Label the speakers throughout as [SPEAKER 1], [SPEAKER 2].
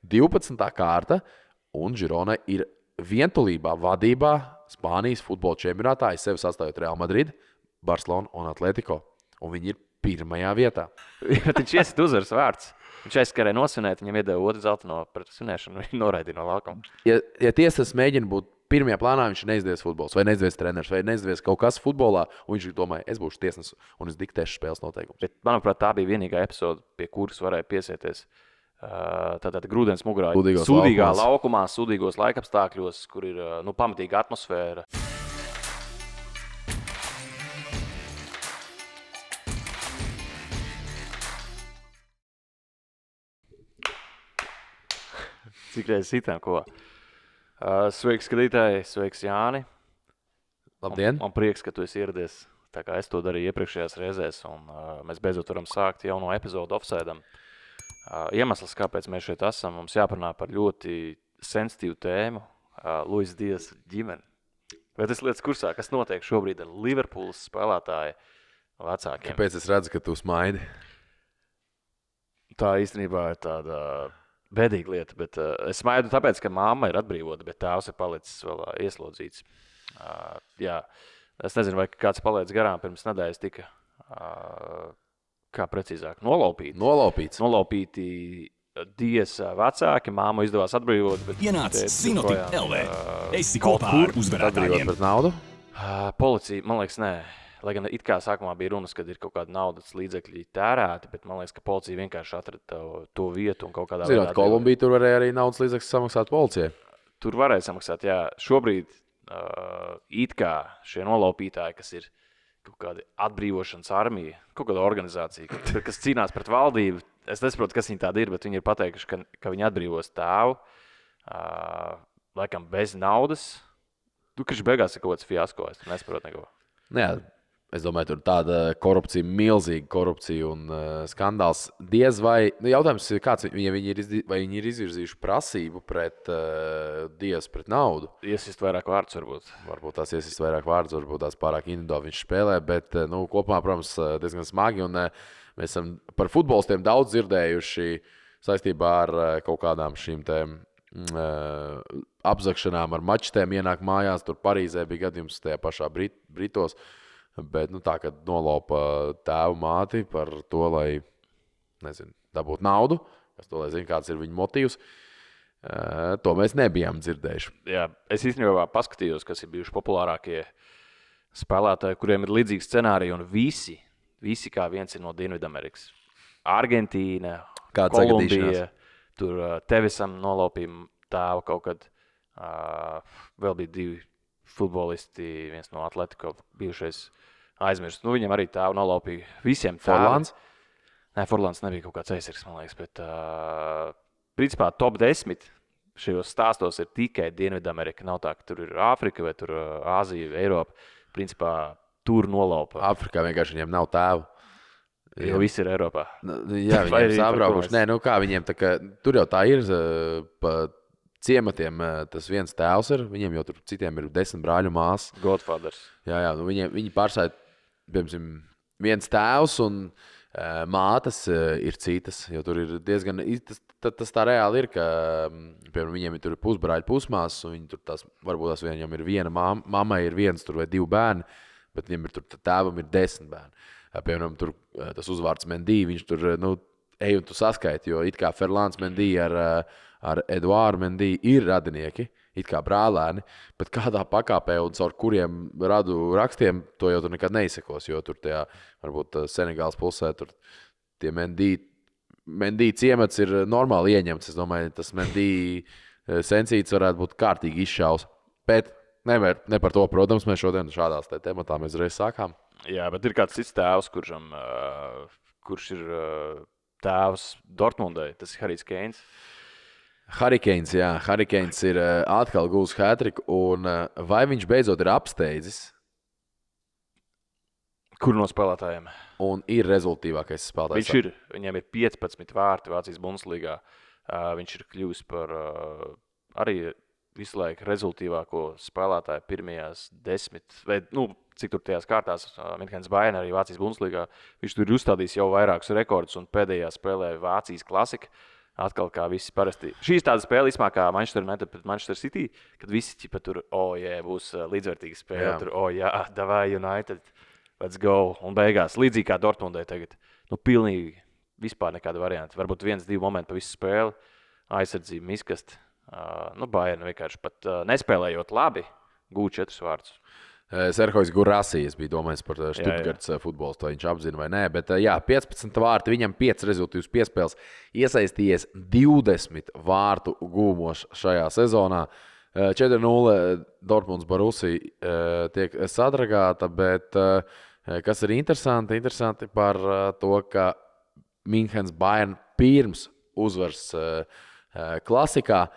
[SPEAKER 1] 12. kārta, un Girona ir vientulībā vadībā Spānijas futbola čempionātā, aiz sevi sastājot Real Madrid, Barcelonu un Atletico. Un viņi ir pirmajā vietā.
[SPEAKER 2] Viņš iesit uzvaras vārds. Viņš aizskarēja nosvinēt, viņam iedeva otru zeltaino pret svinēšanu, viņš noraidīja no laukuma.
[SPEAKER 1] Ja tiesas mēģina būt pirmajā plānā, viņš neizdevies futbols, vai neizdevies treneris, vai neizdevies kaut kas futbolā, un viņš domāja, es būšu tiesnesis un es diktēšu spēles noteikumus.
[SPEAKER 2] Bet, manuprāt, tā bija vienīgā epizode, pie kuras varēja piesieties. Tātad grūdienas mugurā, sūdīgā laukumā, sūdīgos laikapstākļos, kur ir pamatīga atmosfēra. Cik reizes sitām, ko? Sveiks, skatītāji, sveiks, Jāni.
[SPEAKER 1] Labdien!
[SPEAKER 2] Man prieks, ka tu esi ieradies, tā kā es to darīju iepriekšējās reizēs, un mēs beidzot varam sākt jauno epizodu Offside-am. Iemesls, kāpēc mēs šeit esam, mums jāparunā par ļoti sensitīvu tēmu, Luis Dias ģimeni. Vai tas lietas kursā, kas notiek šobrīd ar Liverpoolas spēlētāju vecākiem?
[SPEAKER 1] Kāpēc es redzu, ka tu smaidi?
[SPEAKER 2] Tā īstenībā ir tāda bēdīga lieta, bet es smaidu tāpēc, ka mamma ir atbrīvota, bet tēvs ir palicis vēl ieslodzīts. Jā, es nezinu, vai kāds paliec garām pirms nedēļas tika, kā precīzāk, nolaupīti Dias vecāki, māmu izdevās atbrīvot, bet
[SPEAKER 3] ienāc Sinoptik LV. Esi kopā ar uzvarētājiem.
[SPEAKER 1] Pret naudu?
[SPEAKER 2] Policija, man liekas, nē. Lai gan it kā sākumā bija runas, kad ir kaut kāda naudas līdzekļi tērēti, bet man liekas, ka policija vienkārši atrada to vietu un kaut kādā veidā...
[SPEAKER 1] Zinot, Kolumbija tur varēja arī naudas līdzekļus samaksāt policijai.
[SPEAKER 2] Tur varēja samaksāt, jā. Šobrīd it kā šie nolaupītāji, kas ir kaut kāda atbrīvošanas armija, kaut kāda organizācija, kas cīnās pret valdību, es nesaprotu, kas viņi tādi ir, bet viņi ir pateikuši, ka viņi atbrīvos tēvu, laikam bez naudas. Kurš beigās ir kaut kāds fiasko, es nesaprotu neko.
[SPEAKER 1] Jā. Es domāju, tur tāda korupcija, milzīga korupcija un skandāls. Diez vai, jautājums ir kāds, vai viņi ir izvirzījuši prasību pret Dias pret naudu?
[SPEAKER 2] Iesist vairāk vārdus varbūt.
[SPEAKER 1] Varbūt tās iesist vairāk vārdus, varbūt tās pārāk individuāli viņš spēlē, bet kopumā, protams, diezgan smagi. Un mēs esam par futbolistiem daudz dzirdējuši saistībā ar kaut kādām šīm tēm apzakšanām ar mačtēm ienāk mājās. Tur Parīzē bija gadījums tajā pašā Britos. Bet tā, kad nolaupa tēvu māti par to, lai, dabūtu naudu, kas to, lai zina, kāds ir viņa motīvs, to mēs nebijām dzirdējuši.
[SPEAKER 2] Jā, es īstenībā paskatījos, kas ir bijuši populārākie spēlētāji, kuriem ir līdzīgi scenāriji, un visi kā viens ir no Dienvidamerikas. Argentīna, Kolumbija, tur Tevisam nolaupīja tēvu kaut kad, vēl bija 2 futbolisti, viens no Atletico bijušais aizmirst. Viņam arī tēvu nolaupīja visiem tēviem. Forlāns nebija kaut kāds aizsargs, man liekas, bet principā top 10 šajos stāstos ir tikai Dienvidamerika. Nav tā, ka tur ir Āfrika vai tur Āzija, Eiropa. Principā tur nolaupa.
[SPEAKER 1] Āfrikā vienkārši viņiem nav tēvu.
[SPEAKER 2] Jo viss ir Eiropā.
[SPEAKER 1] Jā, viņiem ir sabraukuši. Nē, kā viņiem, tā kā, tur jau tā ir pa ciematiem tas viens tēvs ir, viņiem jau tur citiem ir 10 brāļu māsas.
[SPEAKER 2] Godfathers.
[SPEAKER 1] Jā, viņi pārstāj, piemēram, viens tēvs un mātes ir citas, jo tur ir diezgan, tas tā reāli ir, ka, piemēram, viņiem ir tur pusbrāļi, pusmāsas, un viņi tur varbūt tās viņam ir viena mammai ir viens tur vai 2 bērni, bet viņam ir tur tēvam ir 10 bērni. Piemēram, tur tas uzvārds Mendy, viņš tur, ej un tu saskaiti, jo it kā Ferlāns Mendy ar Eduāru Mendy ir radinieki, it kā brālēni, bet kādā pakāpē un caur kuriem radu rakstiem to jau tur nekad neizsekos, jo tur tajā, varbūt Senegāls pusē, tur tie Mendy ciemats ir normāli ieņemts. Es domāju, tas Mendy sensīts varētu būt kārtīgi izšaus. Bet ne par to, protams, mēs šodien šādās tematā mēs reiz sākām.
[SPEAKER 2] Jā, bet ir kāds cits tēvs, kurš ir tēvs Dortmundai, tas ir Harijs Keins.
[SPEAKER 1] Harry Keins ir atkal gūs hat-triku, un vai viņš beidzot ir apsteidzis?
[SPEAKER 2] Kur no spēlētājiem?
[SPEAKER 1] Un ir rezultīvākais spēlētājs.
[SPEAKER 2] Viņš ir, viņam ir 15 vārti Vācijas Bundeslīgā. Viņš ir kļuvis par arī visu laiku rezultīvāko spēlētāju pirmajās 10, vai, cik tur tajās kārtās, Minkens Bayern arī Vācijas Bundeslīgā. Viņš tur ir uzstādījis jau vairākus rekordus un pēdējā spēlē Vācijas klasika. Atkal kā visi parasti. Šīs tāda spēle īsmā kā Manchester United pret Manchester City, kad visi ķipa tur, būs līdzvērtīga spēle.
[SPEAKER 1] Jā.
[SPEAKER 2] Tur, davai United, let's go. Un beigās, līdzīgi kā Dortmundai tagad, pilnīgi vispār nekāda varianta. Varbūt 1-2 momenti pa visu spēli, aizsardzību miskast. Bayern vienkārši pat nespēlējot labi, gūt 4 vārdus.
[SPEAKER 1] Serhojs Gurasijas bija domājis par Stuttgarts futbolu, to viņš apzina vai nē, bet 15 vārti, viņam 5 rezultīvas piespēles, iesaistījies 20 vārtu gūmos šajā sezonā. 4-0 Dortmunds Borussia tiek sadragāta, bet kas ir interesanti par to, ka Minhens Bayern pirms uzvars klasikā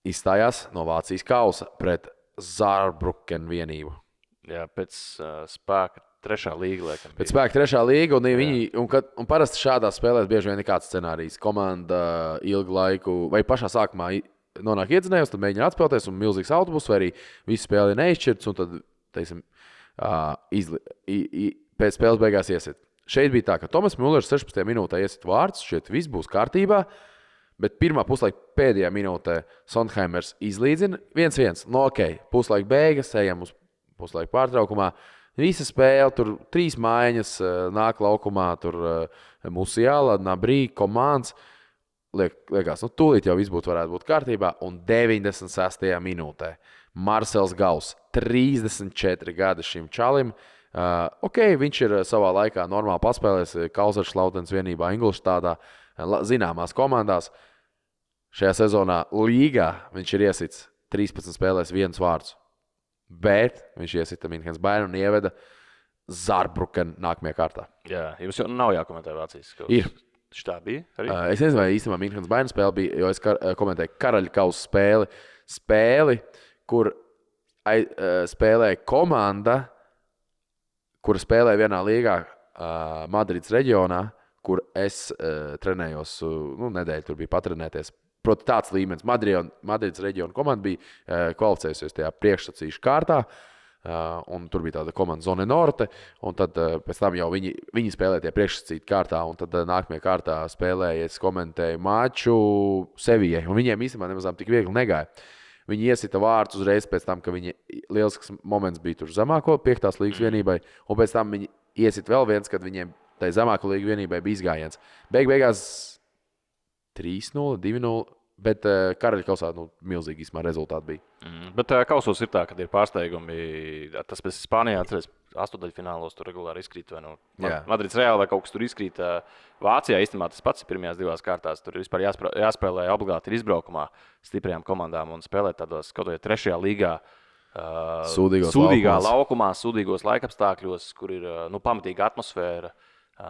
[SPEAKER 1] izstājās no Vācijas kausa pret Saarbrücken vienību.
[SPEAKER 2] Jā, pēc spēka 3. līga, liekam.
[SPEAKER 1] Pēc spēka 3. līga, un parasti šādās spēlēs bieži vien ir kāds scenārijs. Komanda ilgu laiku, vai pašā sākumā nonāk iedzinējos, tad mēģina atspēlēties, un milzīgs autobus, vai arī visu spēli ir neizšķirts, un tad, teiksim, pēc spēles beigās iesit. Šeit bija tā, ka Tomas Mullers 16. minūtē iesit vārds, šeit viss būs kārtībā. Bet pirmā puslaika pēdējā minūtē Sondheimers izlīdzina 1-1. Puslaika beigas, ejam uz puslaika pārtraukumā. Visa spēle, tur 3 mājiņas nāk laukumā, tur Musiala, Nabrī, Komāns. Liekas, tūlīt jau viss varētu būt kārtībā. Un 96. minūtē Marcels Gauss, 34 gadi šim čalim. Viņš ir savā laikā normāli paspēlējis Kaiserslautens vienībā Ingolštādā, zināmās komandās. Šajā sezonā līgā viņš ir iesits 13 spēlēs 1 vārds. Bet viņš iesita Minhens Bayern un ieveda Saarbrücken nākamajā kārtā.
[SPEAKER 2] Jā, jums jau nav jākomentē Vācijas kausa.
[SPEAKER 1] Ir.
[SPEAKER 2] Tā bija arī?
[SPEAKER 1] Es nezinu, vai īstenībā Minhens Bayern spēle bija, jo es komentēju Karaļa kausa spēli, kur spēlēja komanda, kura spēlēja vienā līgā Madrides reģionā, kur es trenējos, nedēļu tur bija patrenēties. Proti tāds līmenis. Madrides reģiona komanda bija kvalificējusies tajā priekšsacīšu kārtā, un tur bija tāda komanda Zone Norte, un tad pēc tam jau viņi spēlēja tie priekšsacītu kārtā, un tad nākamajā kārtā spēlēja, es komentēju maču Sevijai, un viņiem īstenībā nemazām tik viegli negāja. Viņi iesita vārdus uzreiz pēc tam, ka viņi lielisks moments bija tur zemāko 5. līgas vienībai, un pēc tam viņi iesita vēl viens, kad viņiem tai zemāko līgu vienībai bija izgājiens. Beigās 3-0, 2-0, bet Karaļa kausā milzīgi īsmā rezultāti bija.
[SPEAKER 2] Bet kausos ir tā, kad ir pārsteigumi. Tas pēc Spānijā, atceries, 8-daļfinālos tur regulāri izkrīt. Madrids Reāli vai kaut kas tur izkrīt. Vācijā īstenībā tas pats ir pirmajās 2 kārtās. Tur vispār jāspēlē obligāti ir izbraukumā stiprajām komandām un spēlēt tādos kaut vai 3. līgā.
[SPEAKER 1] Sūdīgā
[SPEAKER 2] laukumā, sūdīgos laikapstākļos, kur ir pamatīga atmosfēra.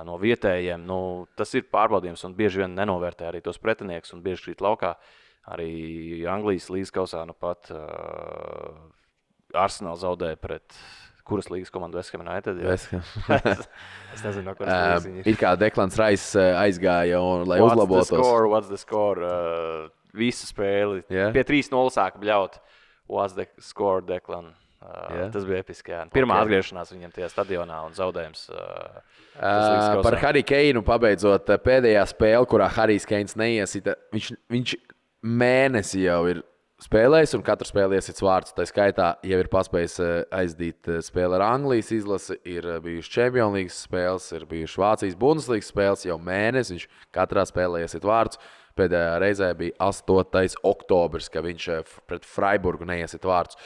[SPEAKER 2] No vietējiem, tas ir pārbaudījums un bieži vien nenovērtē arī tos pretinieks un bieži krīt laukā. Arī Anglijas līgas kausā pat Arsenal zaudēja pret kuras līgas komandu West Ham United. Es nezinu, no kuras līgas viņi ir.
[SPEAKER 1] Ir kā Deklans Rais aizgāja, lai uzlabotos.
[SPEAKER 2] What's the score? Visu spēli. Yeah. Pie 3-0 sāka bļaut. What's the score, Deklan? Tas bija episki. Pirmā atgriešanās viņam tajā stadionā un zaudējums.
[SPEAKER 1] Par Harry Keinu pabeidzot pēdējā spēle, kurā Harijs Keins neiesita. Viņš mēnesi jau ir spēlējis un katru spēli iesits vārds. Tā skaitā jau ir paspējis aizdīt spēli ar Anglijas izlasi, ir bijušas Champions League spēles, ir bijušas Vācijas Bundesliga spēles jau mēnesi. Viņš katrā spēlē iesit vārds. Pēdējā reizē bija 8. oktobris, kad viņš pret Freiburgu neiesit vārdus.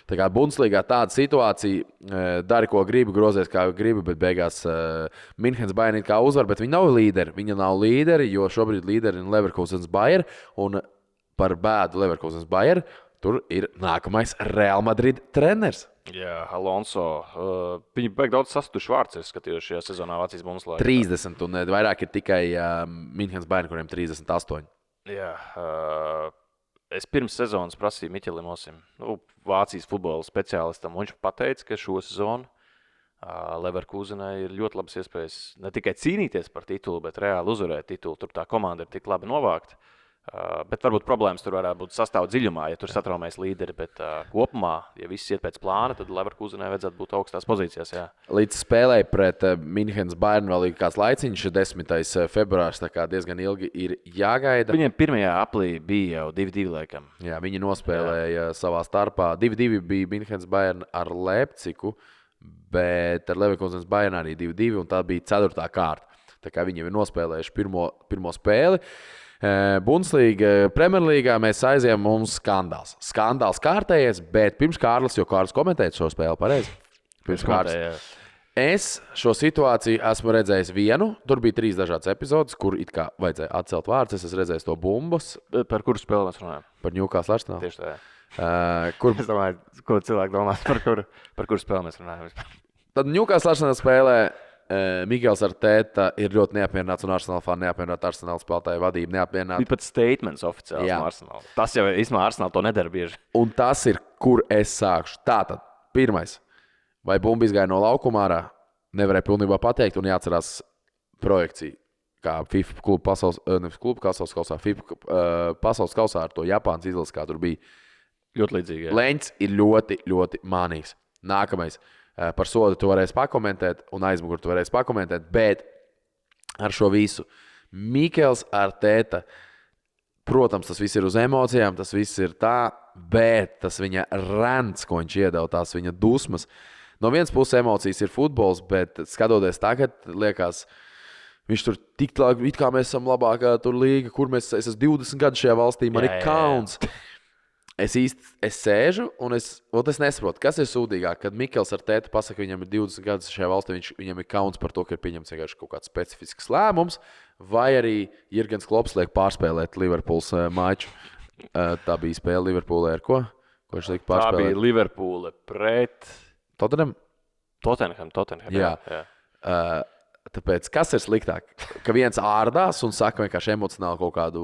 [SPEAKER 1] Tā kā Bundesligā tāda situācija, dari ko gribi, grozies kā gribi, bet beigās Minhens Bayern kā uzvar, bet viņi nav līderi. Viņa nav līderi, jo šobrīd līderi ir Leverkusens Bayern, un par bēdu Leverkusens Bayern tur ir nākamais Real Madrid treneris.
[SPEAKER 2] Jā, Alonso. Viņi beig daudz sastuši vārds, es skatījos šajā sezonā Vācijas Bundesligā.
[SPEAKER 1] 30, un vairāk ir tikai Minhens Bayern, kuriem 38.
[SPEAKER 2] Jā, es pirms sezonas prasīju Miķelim Osim, Vācijas futbola speciālistam, un viņš pateica, ka šo sezonu Leverkusenai ir ļoti labas iespējas ne tikai cīnīties par titulu, bet reāli uzvarēt titulu. Tur tā komanda ir tik labi novākta. Bet varbūt problēmas tur varētu būt sastāv dziļumā, ja tur satraumēs līderi. Bet kopumā, ja viss iet pēc plāna, tad Leverkusenai vajadzētu būt augstās pozīcijās. Jā.
[SPEAKER 1] Līdz spēlēji pret Minhenes Bayern vēl ir kāds laiciņš, 10. februārs, tā kā diezgan ilgi ir jāgaida.
[SPEAKER 2] Viņiem pirmajā aplī bija jau 2-2 laikam.
[SPEAKER 1] Jā, viņi nospēlēja savā starpā. 2-2 bija Minhenes Bayern ar Leipzigu, bet ar Leverkusenes Bayern arī 2-2, un tā bija 4. kārta. Tā kā viņi ir nospēlējuši pirmo spēli. Bundesliga, Premjerlīgā mēs aizējām mums skandāls. Skandāls kārtējies, bet pirms Kārlis, jo Kārlis komentēja šo spēli pareizi. Pirms Kārlis. Es šo situāciju esmu redzējis vienu. Tur bija 3 dažādas epizodes, kur it kā vajadzēja atcelt vārdus. Es esmu redzējis to bumbas.
[SPEAKER 2] Par kuru spēli mēs runājam?
[SPEAKER 1] Par Newcastle Arsenal.
[SPEAKER 2] Tieši tā.
[SPEAKER 1] Kur...
[SPEAKER 2] Es domāju, ko cilvēki domās, par kuru spēli mēs runājam.
[SPEAKER 1] Tad Newcastle Arsenal spēlē. Mikls Arteta ir ļoti neapmierināts un Arsenal fani neapmierināti. Arsenal spēlētāju vadība neapmierināta.
[SPEAKER 2] Bija pat statements oficiāls no Arsenal. Tas jau īstenībā Arsenal to nedara bieži.
[SPEAKER 1] Un tas ir, kur es sākšu. Tātad, pirmais. Vai bumba izgāja no laukuma ārā? Nevarēja pilnībā pateikt un jāatcerās projekcija. Kā FIFA klubu pasaules kausā, FIFA pasaules kausā ar to Japānas izlases, kā tur bija.
[SPEAKER 2] Ļoti līdzīgi. Jā.
[SPEAKER 1] Leņķis ir ļoti, ļoti mānīgs. Nākamais. Par sodu tu varēsi pakomentēt, un aizmuguri tu varēsi pakomentēt, bet ar šo visu Mikls Arteta, protams, tas viss ir uz emocijām, tas viss ir tā, bet tas viņa rants, ko viņš iedeva, tās viņa dusmas. No vienas puses emocijas ir futbols, bet skatoties tagad, liekas, viņš tur tik tālu, it kā mēs esam labākā tur līga, kur es esmu 20 gadu šajā valstī, man ir kauns. Es sēžu un es nesaprotu, kas ir sūdīgāk, kad Mikls Arteta pasaka, ka viņam ir 20 gadus šajā valstī, viņam ir kauns par to, ka ir pieņemts vienkārši kaut kāds specifisks lēmums, vai arī Jurgens Klopps liek pārspēlēt Liverpools maču. Tā bija spēle Liverpoolē ar ko? Ko viņš liek pārspēlēt?
[SPEAKER 2] Tā bija Liverpoole pret
[SPEAKER 1] Tottenham.
[SPEAKER 2] Jā.
[SPEAKER 1] Tāpēc, kas ir sliktāk? Ka viens ārdās un saka vienkārši emocionāli kaut kādu,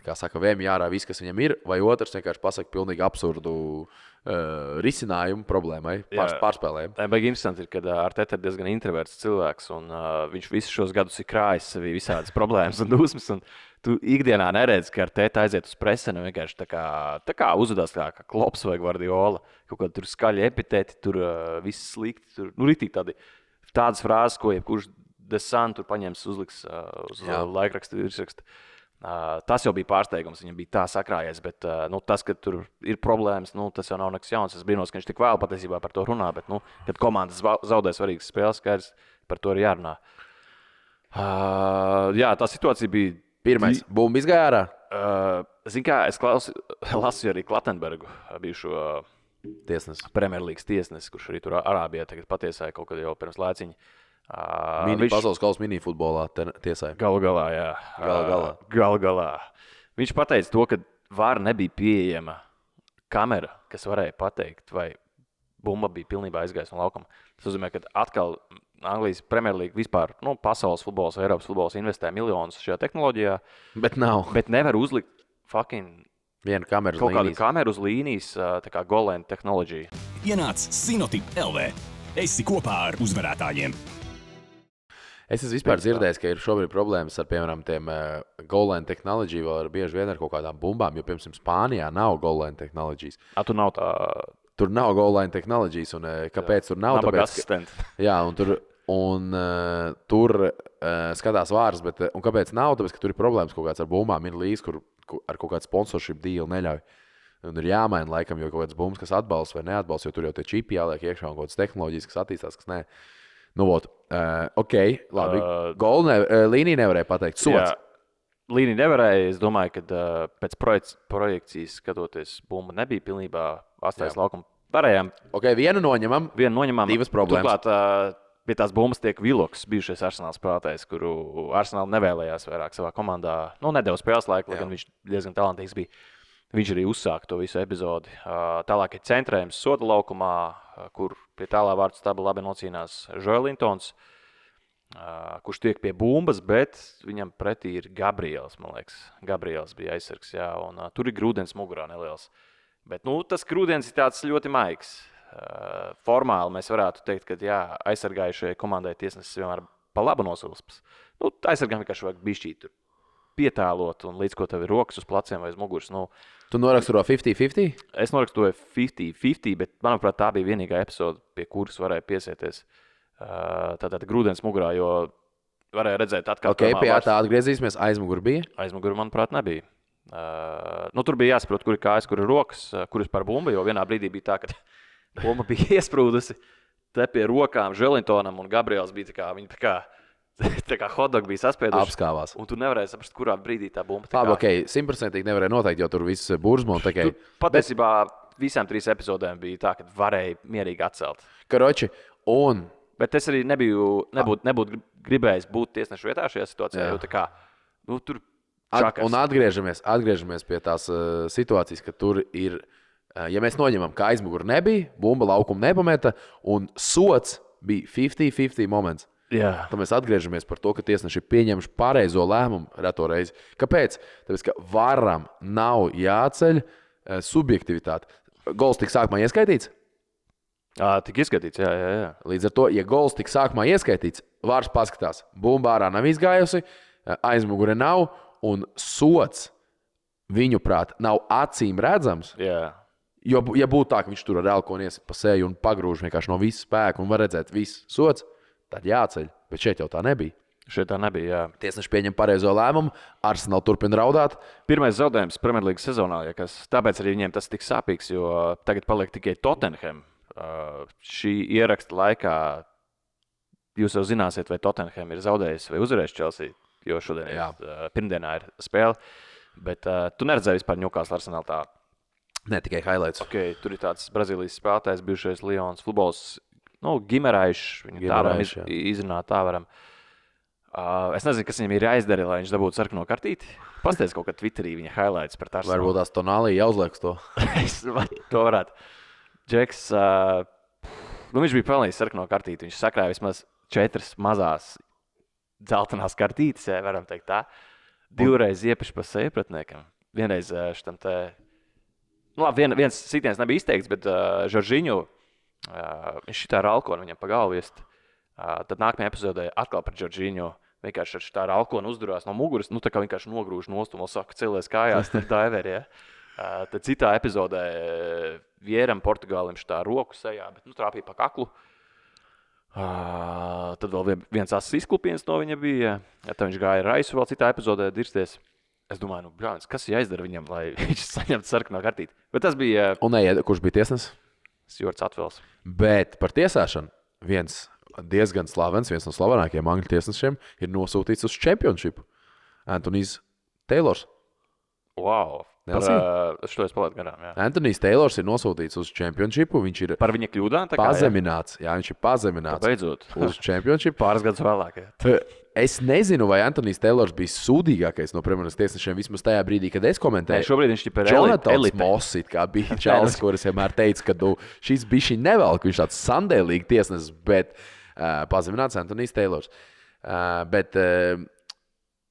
[SPEAKER 1] kā saka, vēmju ārā viss, kas viņam ir, vai otrs vienkārši pasaka pilnīgi absurdu risinājumu problēmai, pārspēlējumu.
[SPEAKER 2] Tā baigi interesanti ir, kad Arteta ir diezgan introverts cilvēks, un viņš visus šos gadus ir krājis sevī visādas problēmas un dusmas, un tu ikdienā neredzi, ka Arteta aiziet uz preseni un vienkārši tā kā uzvedās kā Klopps vai Guardiola, kaut kādi tur skaļi epitēti, tur viss slikti, tur, ritīgi tādas frāzes, ko jebkurš Desan tur paņems, uzliks uz laikrakstu virsrakstu. Tas jau bija pārsteigums, viņam bija tā sakrājies, bet tas, ka tur ir problēmas, tas jau nav nekas jauns. Es brīnos, ka viņš tik vēl patiesībā par to runā, bet, kad komandas zaudē svarīgas spēles, skaidrs, par to ir jārunā. Jā, tā situācija bija...
[SPEAKER 1] Pirmais, bumba izgāja ārā?
[SPEAKER 2] Zini kā, es lasu arī Klatenbergu, bijušo
[SPEAKER 1] tiesnesi.
[SPEAKER 2] Premjerlīgas tiesnesi, kurš arī tur Arābijā tagad patiesāja kaut kad jau pirms laiciņa.
[SPEAKER 1] Pasaules kausa minifutbolā tiesāja.
[SPEAKER 2] Galu galā. Viņš pateica to, ka VAR nebija pieejama kamera, kas varēja pateikt, vai bumba bija pilnībā aizgājusi no laukuma. Tas nozīmē, ka atkal Anglijas Premjerlīga vispār, pasaules futbols, Eiropas futbols investē miljonus šajā tehnoloģijā.
[SPEAKER 1] Bet nav.
[SPEAKER 2] Bet nevar uzlikt
[SPEAKER 1] vienu kameru uz
[SPEAKER 2] kaut
[SPEAKER 1] līnijas.
[SPEAKER 2] kādu kameru uz līnijas, tā kā Golan tehnoloģija.
[SPEAKER 3] Ienāc Sinotip LV. Esi kopā ar uzvarētājiem.
[SPEAKER 1] Es esmu vispār dzirdējis, ka ir šobrīd problēmas ar, piemēram, tiem goal-line tehnoloģiju, vēl bieži vien ar kaut kādām bumbām, jo, piemēram, Spānijā nav goal-line tehnoloģijas.
[SPEAKER 2] Tur nav tā...
[SPEAKER 1] Tur nav goal-line tehnoloģijas, un kāpēc tur nav?
[SPEAKER 2] Nabaga asistenti.
[SPEAKER 1] Jā, tur skatās vārds, bet un kāpēc nav? Tāpēc, ka tur ir problēmas kaut kāds ar bumbām, ir līdz, kur ar kaut kādu sponsorship deal neļauj. Un ir jāmaina laikam, jo kaut kāds bumbas, kas atbalsta vai neatbalsta, jo tur jau tie čipi jāliek iekšā un kaut kādas tehnoloģijas, kas attīstās, kas nē. Ok, labi. Līnija nevarēja pateikt. Sots.
[SPEAKER 2] Līnija nevarēja. Es domāju, ka pēc projekcijas skatoties, bumba nebija pilnībā atstājas laukumu. Varējām.
[SPEAKER 1] Ok, vienu noņemam. Divas problēmas.
[SPEAKER 2] Turklāt pie tās bumbas tiek Viloks, bijušais Arsenal spēlētājs, kuru Arsenal nevēlējās vairāk savā komandā. Nedeva spēles laiku, lai gan viņš diezgan talantīgs bija. Viņš arī uzsāka to visu epizodi. Tālāk ir centrējums soda laukumā, kur pie tālā vārdu staba labi nocīnās Joelintons, kurš tiek pie bumbas, bet viņam pretī ir Gabriels, man liekas. Gabriels bija aizsargs, jā, un tur ir grūdienis mugurā neliels. Bet, tas grūdienis ir tāds ļoti maigs. Formāli mēs varētu teikt, ka aizsargājušajai komandai tiesnesis vienmēr pa labu nosilpas. Aizsargām vienkārši vajag bišķīt tur pietēlot, un līdz ko tev ir rokas uz pleciem vai uz muguras. Nu,
[SPEAKER 1] Tu noraksturo 50-50?
[SPEAKER 2] es noraksturoju 50-50, bet, manuprāt, tā bija vienīgā epizode, pie kuras varēja piesieties. Tātad grūdienis mugurā, jo varēja redzēt atkārtojumā.
[SPEAKER 1] Ok, pie tā atgriezīsimies. Aizmugur bija?
[SPEAKER 2] Aizmuguri, manuprāt, nebija. Tur bija jāsaprot, kur ir kājas, kur ir rokas, kur ir par bumbu, jo vienā brīdī bija tā, ka bumba bija iesprūdusi te pie rokām Želintonam, un Gabriels bija tā kā hotdog bija saspieduši.
[SPEAKER 1] Apskāvās.
[SPEAKER 2] Un tu nevarēji saprast, kurā brīdī tā bumba.
[SPEAKER 1] Labi, ok, 100% nevarēja noteikt, jo tur viss burzma un tikai.
[SPEAKER 2] Patiesībā visām 3 epizodēm bija tā, ka varēja mierīgi atcelt.
[SPEAKER 1] Karoči, un...
[SPEAKER 2] Bet es arī nebūtu gribējis būt tiesnešu vietā šajā situācijā, jo tā kā, tur čakas.
[SPEAKER 1] Un atgriežamies pie tās situācijas, ka tur ir, ja mēs noņemam, ka aizmuguri nebija, bumba laukumu nepameta, un sots bija 50-50 moments.
[SPEAKER 2] Jā.
[SPEAKER 1] Tad mēs atgriežamies par to, ka tiesneši ir pieņemši pareizo lēmumu reto reizi. Kāpēc? Tāpēc, ka varam nav jāceļ subjektivitāte. Gols tika sākumā ieskaitīts?
[SPEAKER 2] Tik izskatīts, jā.
[SPEAKER 1] Līdz ar to, ja gols tika sākumā ieskaitīts, vārds paskatās, bumba ārā nav izgājusi, aizmugure nav, un sots viņuprāt nav acīm redzams.
[SPEAKER 2] Jā.
[SPEAKER 1] Jo, ja būtu tā, ka viņš tur ar elkoni iesit pa seju un pagrūž vienkārši no visa spēka un var redzēt visu sots, tad jāceļ. Bet šeit jau tā nebija.
[SPEAKER 2] Šeit tā nebija, jā.
[SPEAKER 1] Tiesneši pieņem pareizo lēmumu, Arsenal turpina raudāt.
[SPEAKER 2] Pirmais zaudējums Premjerlīgas sezonā, tāpēc arī viņiem tas tik sāpīgs, jo tagad paliek tikai Tottenham. Šī ieraksta laikā jūs jau zināsiet, vai Tottenham ir zaudējis vai uzvarējis Chelsea, jo šodien pirmdienā ir spēle. Bet tu neredzēji vispār Newcastle Arsenal tā.
[SPEAKER 1] Ne tikai highlights.
[SPEAKER 2] Okay, tur ir tāds Brazīlijas spēlētājs, bijušais Lions futbols, Gimeraišs, viņu tā varam izrunāt, tā varam. Es nezinu, kas viņam ir jāizdara, lai viņš dabūtu sarkano kartīti. Pastāstiet kaut kā Twitterī viņa highlights par Arsenal.
[SPEAKER 1] Varbūt tās Tonālī jāuzlieks to.
[SPEAKER 2] To varētu. Džeks, viņš bija pelnījis sarkano kartīti. Viņš sakrāja vismaz 4 mazās dzeltenās kartītes, varam teikt tā. 2 reiz iepiši pa seju pretiniekam. Vienreiz šitam te... viens sitiens nebija izteikts, bet Žoržiņu, viņš šitā ar alkonu viņam pa galvu iest. Tad nākamajā epizodē atkal par Žoržiņu vienkārši ar šitā ar alkonu uzdurās no muguras, tā kā vienkārši nogrūž nost un vēl saka celies kājās, tad diveri, ja. Tad citā epizodē Vieram Portugālim šitā roku sejā, bet trāpīja pa kaklu. Tad vēl viens asas izklupiens no viņa bija, tad viņš gāja raisu vēl citā epizodē dirsties. Es domāju, brāļs, kas jāizdara viņam, lai viņš saņemtu sarkano kartīti. Bet tas bija...
[SPEAKER 1] Un kurš bija tiesnesis?
[SPEAKER 2] Jords Atvels.
[SPEAKER 1] Bet par tiesāšanu viens diezgan slavens, viens no slavenākajiem angļu tiesnešiem ir nosūtīts uz čempionšipu. Antonijs Teilors.
[SPEAKER 2] Wow. Es to palētu garām, jā.
[SPEAKER 1] Antonijs Teilors ir nosūtīts uz čempionšipu. Viņš ir
[SPEAKER 2] par viņa kļūdām?
[SPEAKER 1] Pazemināts. Jā, viņš ir pazemināts.
[SPEAKER 2] Beidzot.
[SPEAKER 1] Uz čempionšipu.
[SPEAKER 2] Pāris gadus vēlāk. Jā.
[SPEAKER 1] Es nezinu, vai Antonijs Teilors bija sūdīgākais no Premjeras tiesnešiem vismaz tajā brīdī, kad es komentēju.
[SPEAKER 2] Šobrīd viņš ir
[SPEAKER 1] Jonatans Moss, kā bija čalis, kuris vienmēr teica, ka šis bišķi nevelk, viņš tāds sandēlīgi tiesnesis, bet pazemināts Antonijs Teilors. Bet,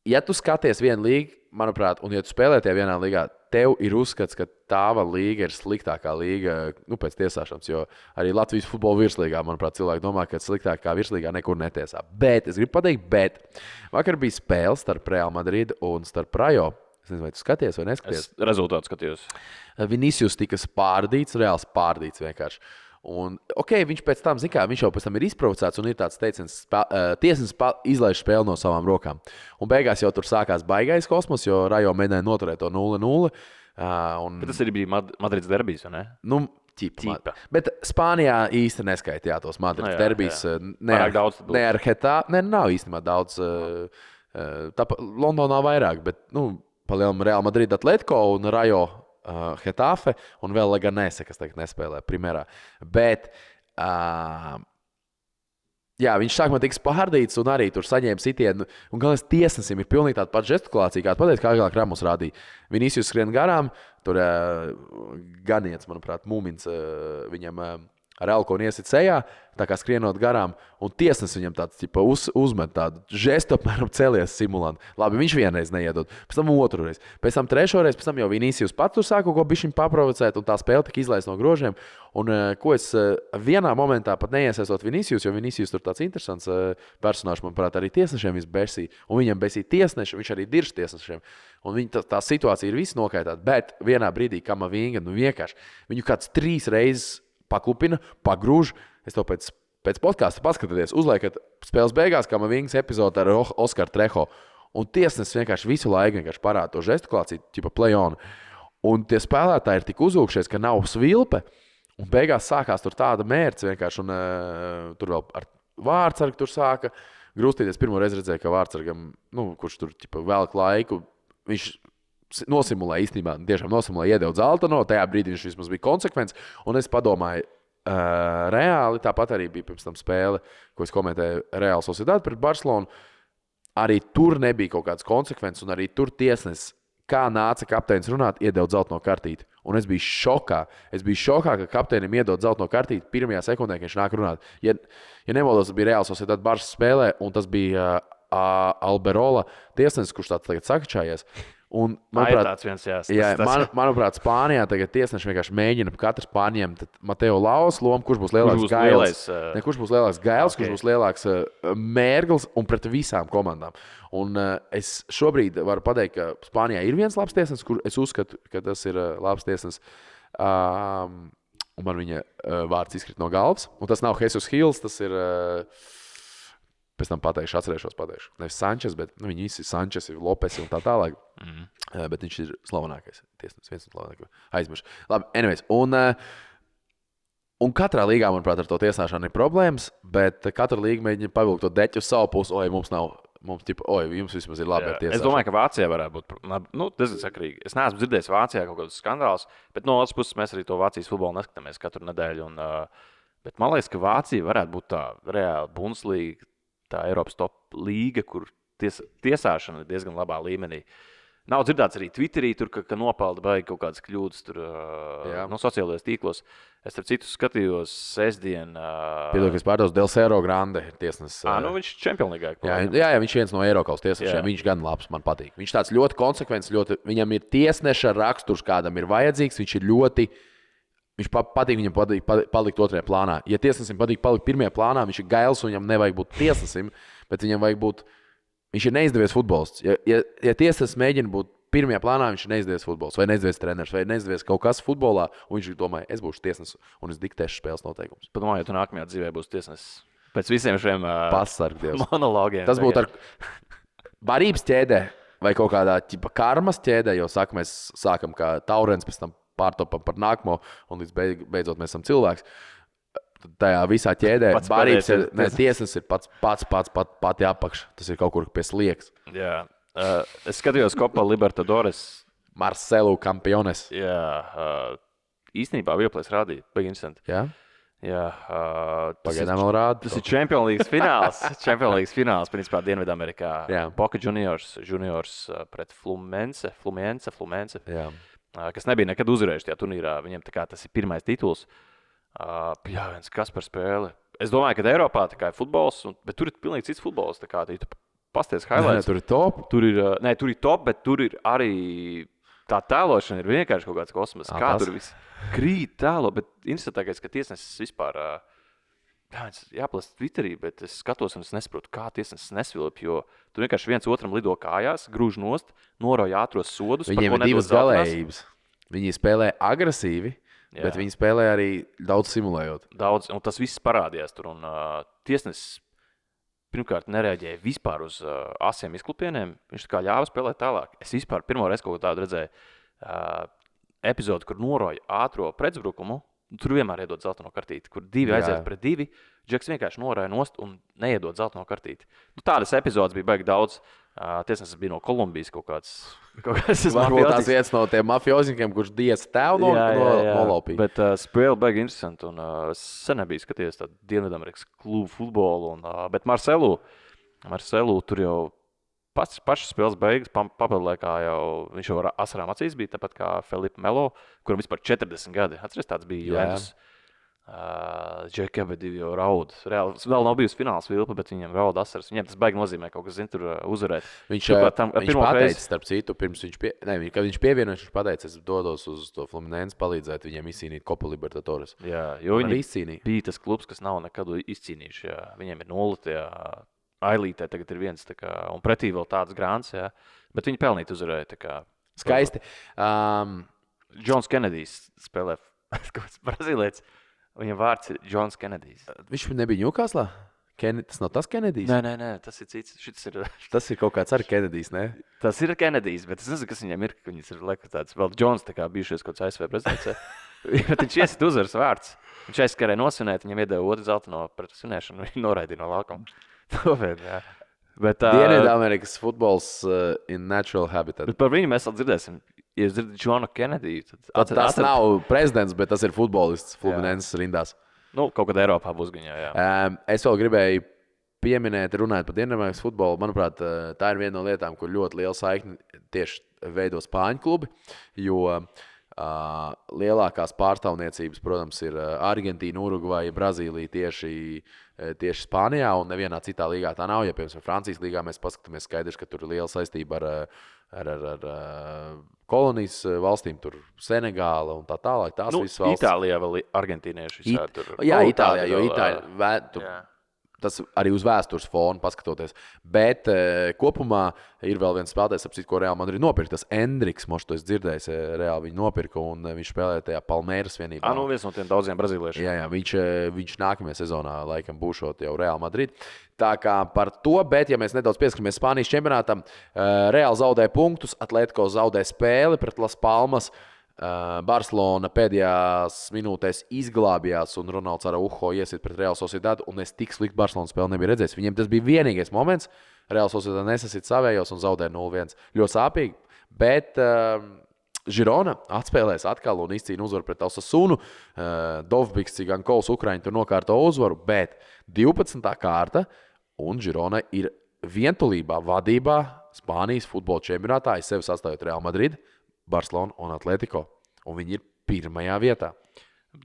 [SPEAKER 1] ja tu skaties vienu līgu, manuprāt, un ja tu spēlē tajā vienā līgā, tev ir uzskats, ka tāva līga ir sliktākā līga pēc tiesāšanas, jo arī Latvijas futbola virslīgā, manuprāt, cilvēki domā, ka sliktākā virslīgā nekur netiesā. Bet, es gribu pateikt, vakar bija spēle starp Real Madrid un starp Rayo. Es nezinu, vai tu skaties vai neskaties.
[SPEAKER 2] Es rezultātu skatījos.
[SPEAKER 1] Vinicius tika spārdīts, Reāls spārdīts vienkārši. Un, viņš pēc tam, viņš jau pēc tam ir izprovocēts un ir tāds teiciens, tiesnesis izlaiž spēli no savām rokām. Un beigās jau tur sākās baigais kosmos, jo Rayo mēģināja noturēt to 0-0.
[SPEAKER 2] Bet tas arī bija Madrids derbijs, vai ne?
[SPEAKER 1] Ķipa. Bet Spānijā īsti neskaitījā tos Madrids derbijs. Ne ar Hetā, nav īstenībā daudz. Londonā vairāk, bet, pa lielam Real Madrid Atletico un Rayo Hetafe un vēl Leganese, kas tagad nespēlē primerā. Bet, viņš sākumā tika spārdīts un arī tur saņēma sitienu. Un galvenais tiesnesim ir pilnīgi tāda pat žestikulācija, kāda pateica, kā agrāk Ramos rādīja. Vinicius skrien garām, tur Ganiets, manuprāt, Mūmins viņam ar elkonu iesit sejā, tā kā skrienot garām, un tiesnesis viņam tāds uzmet tādu žestu, apmēram celies simulantu. Labi, viņš vienreiz neiedod, pēc tam otru reizi, pēc tam trešo reizi, pēc tam jau Vinicius pats tur sāka kaut ko bišķiņ paprovocēt, un tā spēle tika izlaista no grožiem. Un ko es vienā momentā pat neiesaistot Vinicius, jo Vinicius tur tāds interesants personāžs, manuprāt, arī tiesnešiem besīja, un viņam besīja tiesneši, viņš arī dirž tiesnešiem. Un tā situācija ir viss nokaitāta, bet vienā brīdī Kamavinga, vienkārši viņu kāds 3 reizes paklupina, pagrūž. Es to pēc podkāsta paskatieties, uzliekat spēles beigās, kā man vienas epizode ar Oskaru Treho. Un tiesnesis vienkārši visu laiku parāda to žestikulāciju, tipa play-on. Un tie spēlētāji ir tik uzvilkšies, ka nav svilpe. Un beigās sākās tur tāda mērce vienkārši. Un tur vēl ar Vārtsargu tur sāka grūstīties. Pirmo reizi redzēju, ka Vārtsargam, kurš tur tipa velk laiku, viņš nosimulēja īstenībā, tiešām nosimulēja, iedeva Zaltano. Tajā brīdī viņš vismaz bija konsekvents. Un es padomāju, reāli tāpat arī bija pirms tam spēle, ko es komentēju Real Sociedad pret Barcelonu. Arī tur nebija kaut kādas konsekvences, un arī tur tiesnesis, kā nāca kapteinis runāt, iedeva zeltaino kartīti. Un es biju šokā. Es biju šokā, ka kapteinim iedod zeltaino kartīti pirmajā sekundē, kad viņš nāk runāt. Ja nemaldos, tas bija Real Sociedad Barça spēlē, un tas bija Alberola tiesnesis, kurš tāds tagad sakačājies. Un, manuprāt, Spānijā tagad tiesneši vienkārši mēģina katrs pārņemt Mateo Laus lomu, kurš būs lielāks Gails. Kurš būs lielāks Gails, kurš būs lielāks Mērgls un pret visām komandām. Un es šobrīd varu pateikt, ka Spānijā ir viens labs tiesnesis, kur es uzskatu, ka tas ir labs tiesnesis. Un man viņa vārds izkrīt no galvas. Un tas nav Jesus Hills, tas ir... Pēc tam atcerēšos. Nevis Sančes, bet viņi visi ir Sančes, Lopes un tā tālāk. Bet viņš ir slavenākais tiesnesis, viens no slavenākajiem. Aizmiršu. Labi, anyways. Un katrā līgā, manuprāt, ar to tiesāšanu ir problēmas, bet katra līga mēģina pavilkt to deķu uz savu pusi. Jums vismaz ir labi ar tiesāšanu.
[SPEAKER 2] Es domāju, ka Vācijā varētu būt diezgan sakrīgi. Es neesmu dzirdējis Vācijā kaut kādus skandālus, bet no otras puses mēs arī to Vācijas futbolu neskatāmies katru nedēļu. Bet man liekas, ka Vācija varētu būt tā reāla Bundeslīga, tā Eiropas top līga, kur tiesāšana ir diezgan labā līmenī. Nav dzirdēts arī Twitterī, tur, ka nopelda baigi kaut kādas kļūdas tur, no sociālajos tīklos. Es starp citu skatījos sestdien.
[SPEAKER 1] Piedod, ka es pārdos Del Cerro Grande ir tiesnesis.
[SPEAKER 2] Viņš ir čempionlīgā.
[SPEAKER 1] Jā, viņš ir viens no Eiropas tiesnešiem. Viņš gan labs, man patīk. Viņš tāds ļoti konsekvents, viņam ir tiesneša raksturs, kādam ir vajadzīgs. Viņš patīk viņam palikt otrajā plānā. Ja tiesnesim patīk palikt pirmajā plānā, viņš ir gails un viņam nevajag būt tiesnesim, bet viņam vajag būt, viņš ir neizdevies futbolists. Ja tiesnesis mēģina būt pirmajā plānā, viņš ir neizdevies futbolists, vai neizdevies treneris, vai neizdevies kaut kas futbolā, un viņš domāja, es būšu tiesnesis un es diktēšu spēles noteikumus.
[SPEAKER 2] Padomāju, ja tu nākamajā dzīvē būsi tiesnesis. Pēc visiem šiem
[SPEAKER 1] monologiem. Tas būtu ar barības ķēdē vai kaut kādā karmas ķēdē, jo mēs sākam kā taurens, pēc tam pārtopam par nākamo, un līdz beidzot mēs esam cilvēks. Tajā visā ķēdē tiesnesis ir pati apakš. Tas ir kaut kur pie sliekas.
[SPEAKER 2] Jā. Es skatījos Copa Libertadores.
[SPEAKER 1] Marcelo Campiones.
[SPEAKER 2] Jā. Īstenībā Vieplēs rādīja. Baigi interesanti.
[SPEAKER 1] Jā?
[SPEAKER 2] Jā.
[SPEAKER 1] Pagaidām vēl rāda.
[SPEAKER 2] Tas ir Champions League fināls. Champions League fināls, principā, Dienvidamerikā. Boca Juniors pret Fluminense.
[SPEAKER 1] Jā.
[SPEAKER 2] Kas nebija nekad uzvarējuši tajā turnīrā. Viņiem tas ir pirmais tituls. Kas par spēli. Es domāju, ka Eiropā ir futbols, bet tur ir pilnīgi cits futbols. Tu pasties highlights.
[SPEAKER 1] Tur ir top.
[SPEAKER 2] Tur ir top, bet tur ir arī tā tēlošana ir vienkārši kaut kāds kosmos. Kā tur viss krīt tēlo, bet interesantākais, ka tiesnesis vispār jāplast Twitterī, bet es skatos un es nesaprotu, kā tiesnesis nesvilp, jo tur vienkārši viens otram lido kājās, grūž nost, norauj ātros sodus.
[SPEAKER 1] Viņiem ir divas galējības. Viņi spēlē agresīvi, bet viņi spēlē arī daudz simulējot.
[SPEAKER 2] Daudz, un tas viss parādījās tur, un tiesnesis pirmkārt nereaģēja vispār uz asiem izklupieniem, viņš tā kā ļāva spēlēt tālāk. Es vispār pirmo reizi kaut tādu redzēju epizodu, kur norauj ātro pretuzbrukumu. Tur vienmēr iedod zeltaino kartīti, kur divi aiziet pret divi. Džeks vienkārši norāja nost un neiedod zeltaino kartīti. Tādas epizodes bija baigi daudz. Tiesnesis bija no Kolumbijas kaut kāds.
[SPEAKER 1] Varbūt tās viens no tiem mafioziņiem, kurš diez tev nolaupīja.
[SPEAKER 2] Bet spēle baigi interesanti. Un sen nebija skatījies tādu Dienvidamerikas klubu futbolu. Bet Marcelu tur jau pašas spēles beigas, papildlaikā jau viņš jau ar asarām acīs bija, tāpat kā Felipe Melo, kuram vispār 40 gadi. Atceries, tāds bija Juventus. Džeki abi jau raud. Reāli, vēl nav bijusi fināls vilpa, bet viņiem raud asaras. Viņiem tas baigi nozīmē kaut kas, tur uzvarēt.
[SPEAKER 1] Viņš pateica, starp citu, pirms kad viņš pievienojas, viņš pateica, es dodos uz to Fluminense palīdzēt viņiem izcīnīt Copa Libertadores.
[SPEAKER 2] Jā, jo viņi bija tas klubs, kas nav nekad izcīnījuši. Jā. Viņiem ir 0 tajā ailītē, tagad ir 1, un pretī vēl tāds grāns, jā. Bet viņi pelnīt uzvarēja.
[SPEAKER 1] Skaisti.
[SPEAKER 2] Džons Kenedijs spēlē Brazīlietis. Viņam vārds ir Džons Kenedijs.
[SPEAKER 1] Viņš nebija Ņūkaslā? Tas nav tas Kenedijs?
[SPEAKER 2] Nē, tas ir cits.
[SPEAKER 1] Tas ir kaut kāds arī Kenedijs, ne?
[SPEAKER 2] Tas ir Kenedijs, bet es nezinu, kas viņam ir, ka viņas ir liekas tāds vēl Džons, tā kā bijušies kaut kāds ASV prezidents. Bet viņš iesit uzvaras vārds. Viņš aizskarēja nosvinēt, viņam iedeva otru zeltaino pret svinēšanu, viņš noraidīja no laukuma.
[SPEAKER 1] Dienvidamerikas futbols in natural habitat.
[SPEAKER 2] Bet par viņu mēs vēl dzirdēsim. Ja jūs dzirdat Džonu Kenediju, tad
[SPEAKER 1] tas nav prezidents, bet tas ir futbolists Fluminenses rindās.
[SPEAKER 2] Kaut kad Eiropā būs viņa, jā.
[SPEAKER 1] Es vēl gribēju pieminēt, runājot par Dienvidamerikas futbolu. Manuprāt, tā ir viena no lietām, kur ļoti liela saikne tieši veido spāņu klubi, jo lielākās pārstāvniecības, protams, ir Argentīna, Urugvaja, Brazīlija tieši Spānijā, un nevienā citā līgā tā nav. Ja, piemēram, Francijas līgā mēs paskatāmies, skaidrs, ka tur ir liela saistība ar kolonijas valstīm, tur Senegāla un tā tālāk. Tās visas valsts.
[SPEAKER 2] Itālijā vēl argentīnieši.
[SPEAKER 1] Jā, Itālijā, jo Itālijā tas arī uz vēstures fona paskatoties. Bet kopumā ir vēl viens spēlētājs, ap citu, ko Real Madrid nopirka. Tas Endriks, moš to es dzirdējis, Real viņu nopirka, un viņš spēlēja tajā Palmeiras vienībā.
[SPEAKER 2] Viens no tiem daudziem brazīliešiem.
[SPEAKER 1] Jā, viņš nākamajā sezonā laikam būšot jau Real Madrid. Tā kā par to, bet ja mēs nedaudz pieskatāmies Spānijas čempionātam, Real zaudē punktus, Atletico zaudē spēli pret Las Palmas. Barcelona pēdējās minūtēs izglābjās, un Ronalds Araujo iesit pret Real Sociedad, un es tik sliktu Barcelonas spēli nebiju redzējis. Viņiem tas bija vienīgais moments. Real Sociedad nesasit savējos un zaudē 0-1. Ļoti sāpīgi, bet Girona atspēlēs atkal un izcīna uzvaru pret Osasunu. Dovbiks, Cigankovs, Ukraiņi tur nokārto uzvaru, bet 12. kārta, un Girona ir vientulībā vadībā Spānijas futbola čempionātā, aiz sevi sastājot Real Madrid, Barcelona un Atletico. Un viņi ir pirmajā vietā.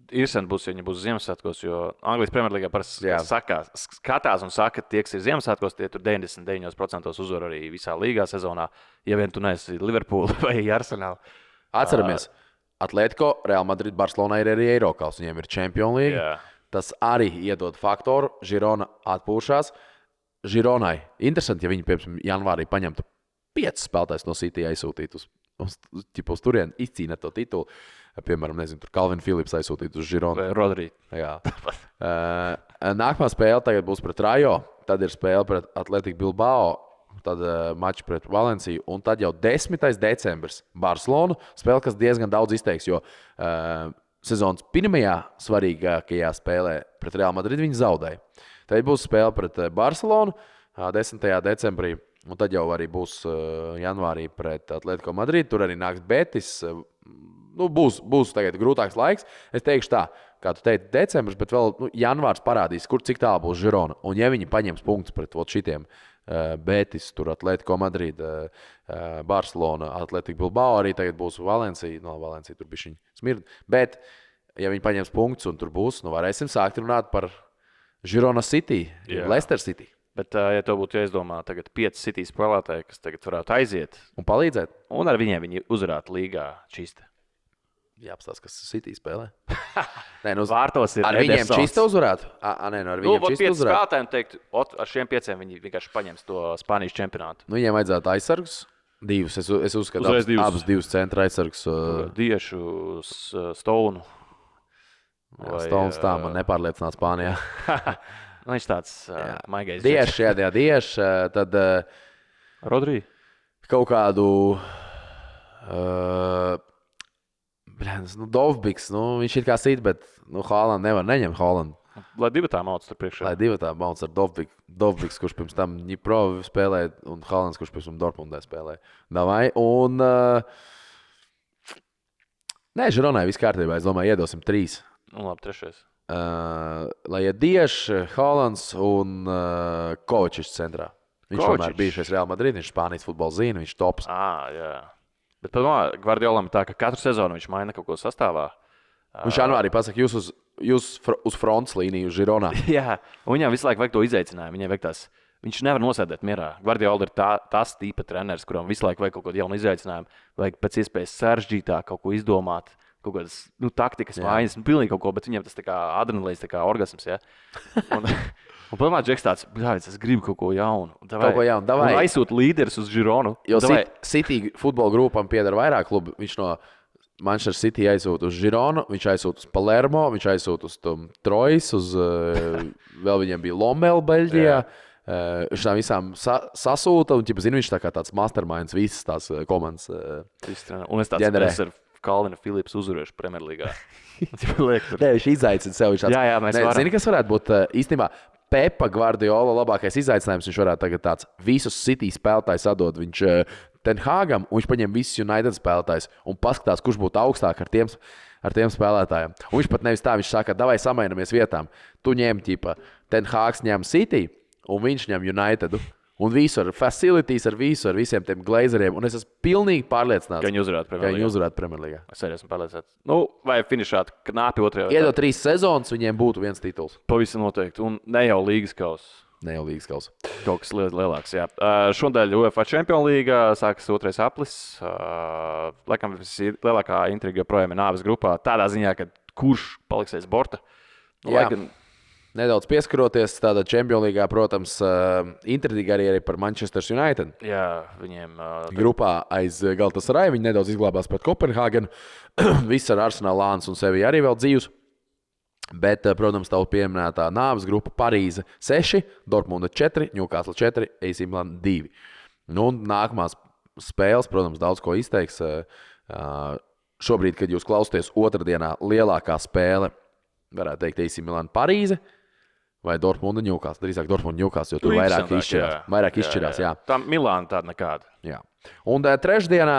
[SPEAKER 2] Interesanti būs, ja viņi būs Ziemassvētkos, jo Anglijas Premjerlīgā parasti skatās un saka, ka tie, kas ir Ziemassvētkos, tie tur 99% uzvar arī visā līgā sezonā, ja vien tu neesi Liverpool vai Arsenal.
[SPEAKER 1] Atceramies, Atletico, Real Madrid, Barcelona ir arī Eirokals, viņiem ir Champions League. Jā. Tas arī iedod faktoru, Girona atpūšās. Gironai interesanti, ja viņi, piemēram, janvārī paņemtu 5 spēlētājus no City aizsūtītu uz turieni, izcīnīt to titulu. Piemēram, nezinu, tur Calvin Phillips aizsūtīt uz Gironu.
[SPEAKER 2] Rodri.
[SPEAKER 1] Jā. Nākamā spēle tagad būs pret Rajo, tad ir spēle pret Atletico Bilbao, tad mačs pret Valenciju, un tad jau 10. decembris Barcelona spēle, kas diezgan daudz izteiks, jo sezonas pirmajā svarīgākajā spēlē pret Real Madrid viņi zaudēja. Tad būs spēle pret Barcelonu 10. decembrī. Un tad jau arī būs janvārī pret Atletico Madrid. Tur arī nāks Betis. Būs tagad grūtāks laiks. Es teikšu tā, kā tu teici, decembris, bet vēl janvārs parādīs, cik tālu būs Girona. Un ja viņi paņems punktus pret šitiem Betis, tur Atletico Madrid, Barcelona, Atletico Bilbao, arī tagad būs Valencija. Valencija tur bišķiņ smird. Bet, ja viņi paņems punktus un tur būs, varēsim sākt runāt par Girona City, Leicester City.
[SPEAKER 2] Bet, ja to būtu jāizdomā, tagad 5 City spēlētāji, kas tagad varētu aiziet
[SPEAKER 1] un palīdzēt,
[SPEAKER 2] un ar viņiem viņi uzvarētu līgā čista.
[SPEAKER 1] Jāapstāsta, kas City spēlē.
[SPEAKER 2] Vārtos ir
[SPEAKER 1] ar
[SPEAKER 2] Edersons.
[SPEAKER 1] Viņiem čista uzvarētu? Ar viņiem čista uzvarētu?
[SPEAKER 2] Spēlētājiem teikt, ar šiem 5 viņi vienkārši paņems to Spānijas čempionātu.
[SPEAKER 1] Viņiem vajadzētu aizsargus. Divus. Es uzskatu, abus divus centra aizsargus.
[SPEAKER 2] Diešu, Stonu.
[SPEAKER 1] Stones tā man nepārliecināt Spānijā.
[SPEAKER 2] Viņš tāds maigais.
[SPEAKER 1] Dieši, tad
[SPEAKER 2] Rodri.
[SPEAKER 1] Kaut kādu Dovbiks, viņš ir kā sit, bet Haaland nevar neņemt Haaland.
[SPEAKER 2] Lai divi tā mauc tur priekšā.
[SPEAKER 1] Lai divi tā mauc ar Dovbiks, kurš pirms tam Ņipro spēlēja, un Haalands, kurš pirms tam Dortmundē spēlēja. Davai, un Žironai viss kārtībā, es domāju, iedosim 3.
[SPEAKER 2] Labi, 3.
[SPEAKER 1] Lai ir Dieši, Haalands un Kovačičs centrā. Viņš vienmēr bijušais Real Madrid, viņš Spānijas futbolu zina, viņš tops.
[SPEAKER 2] Jā. Bet Gvardiolam ir tā, ka katru sezonu viņš maina kaut ko sastāvā.
[SPEAKER 1] Viņš janvārī pasaka, jūs uz jūs uz frontes līniju, uz Žironā.
[SPEAKER 2] Jā, un viņam visu laiku vajag to izaicinājumu. Viņam vajag tās, viņš nevar nosēdēt mierā. Guardiola ir tas tipa treneris, kuram visu laiku vajag kaut kādu jaunu izaicinājumu. Vajag pēc iespējas sarežģītāk kaut ko izdomāt, kaut kādas taktikas mājas, pilnīgi kaut ko, bet viņam tas tā kā adrenalīns, tā kā orgasms. Ja? Un padomā, Džeks tāds, es gribu kaut ko jaunu.
[SPEAKER 1] Kaut ko jaunu, davai.
[SPEAKER 2] Un aizsūt līderis uz Žironu.
[SPEAKER 1] Jo City futbola grupam pieder vairāk klubu. Viņš no Manchester City aizsūt uz Žironu, viņš aizsūt uz Palermo, viņš aizsūt uz Trojas, vēl viņiem bija Lommel Beļģijā. Viņš tām visām sasūta, un viņš tā kā tāds masterminds visas tās komandas
[SPEAKER 2] un es tāds ar Kalvinu Philips uzvarēšu Premjerlīgā.
[SPEAKER 1] Viņš izaicina sev.
[SPEAKER 2] Mēs varam.
[SPEAKER 1] Zini, kas varētu būt īstenībā Pepa Guardiola labākais izaicinājums. Viņš varētu tagad tāds visus City spēlētājus atdot. Viņš Ten Hagam, un viņš paņem visus United spēlētājus un paskatās, kurš būtu augstāk ar tiem spēlētājiem. Un viņš pat nevis tā, viņš saka, davai samainamies vietām. Tu ņem Ten Hags ņem City, un viņš ņem United. Un visu ar facilities, ar visiem tiem glazeriem. Un es esmu pilnīgi pārliecināts,
[SPEAKER 2] ka viņi
[SPEAKER 1] uzvarētu Premjerlīgā.
[SPEAKER 2] Es arī esmu pārliecināts. Vai finišāt knapi otrajā.
[SPEAKER 1] Iedot 3 sezonas, viņiem būtu viens tituls.
[SPEAKER 2] Pavisam noteikti. Un ne jau līgas kausa. Kaut kas lielāks, jā. Šodien UEFA Champions League sākas 2. aplis. Laikam lielākā intriga joprojām ir nāves grupā. Tādā ziņā, ka kurš paliks aiz borta.
[SPEAKER 1] Nedaudz pieskaroties tādā Champions League, protams, intriga arī par Manchester United.
[SPEAKER 2] Jā, viņiem
[SPEAKER 1] grupā aiz Galatasaray viņi nedaudz izglābās pret Kopenhāgenu. Viss ar Arsenal, Lāns un sevi arī vēl dzīvs. Bet, protams, tā pieminētā nāves grupa Parīze 6, Dortmunda 4, Newcastle 4, AC Milan 2. Nu, nākamās spēles, protams, daudz ko izteiks. Šobrīd, kad jūs klausāties otrdienā, lielākā spēle, varētu teikt, AC Milan Parīze. Vai Dortmunda Newcastle? Drīzāk Dortmunda Newcastle, jo tur vairāk izšķirās. Jā.
[SPEAKER 2] Tā Milāna tāda nekāda.
[SPEAKER 1] Jā. Un trešdienā,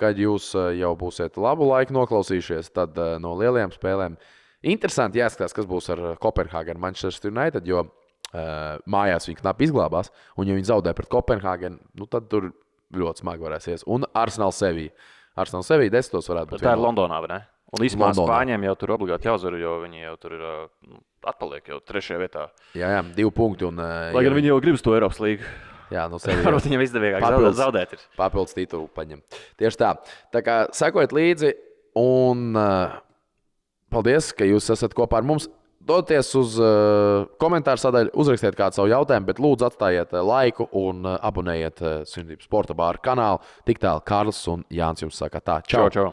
[SPEAKER 1] kad jūs jau būsiet labu laiku noklausījušies, tad no lielajām spēlēm interesanti jāskatās, kas būs ar Kopenhāgenu Manchester United, jo mājās viņi knapi izglābās, un ja viņi zaudē pret Kopenhāgenu, tad tur ļoti smagi varēs ies. Un Arsenal Sevilla. Arsenal Sevilla 10. varētu būt.
[SPEAKER 2] Tā ir Londonā, vai ne? Un īstenībā Spāņiem jau tur obligāti jāuzvar, jo viņi jau tur ir atpaliek jau 3. vietā.
[SPEAKER 1] Jā, 2 punkti.
[SPEAKER 2] Lai gan viņi jau gribas to Eiropas līgu.
[SPEAKER 1] Jā, no sevis.
[SPEAKER 2] Varbūt viņam izdevīgāk zaudēt ir.
[SPEAKER 1] Papildus titulu paņem. Tieši tā. Tā kā sekojiet līdzi un paldies, ka jūs esat kopā ar mums. Doties uz komentāru sadaļu, uzrakstiet kādu savu jautājumu, bet lūdzu atstājiet laiku un abonējiet Sunību Sporta bāra kanālu. Tik tālu Kārlis un Jānis jums saka tā. Čau!
[SPEAKER 2] Čau!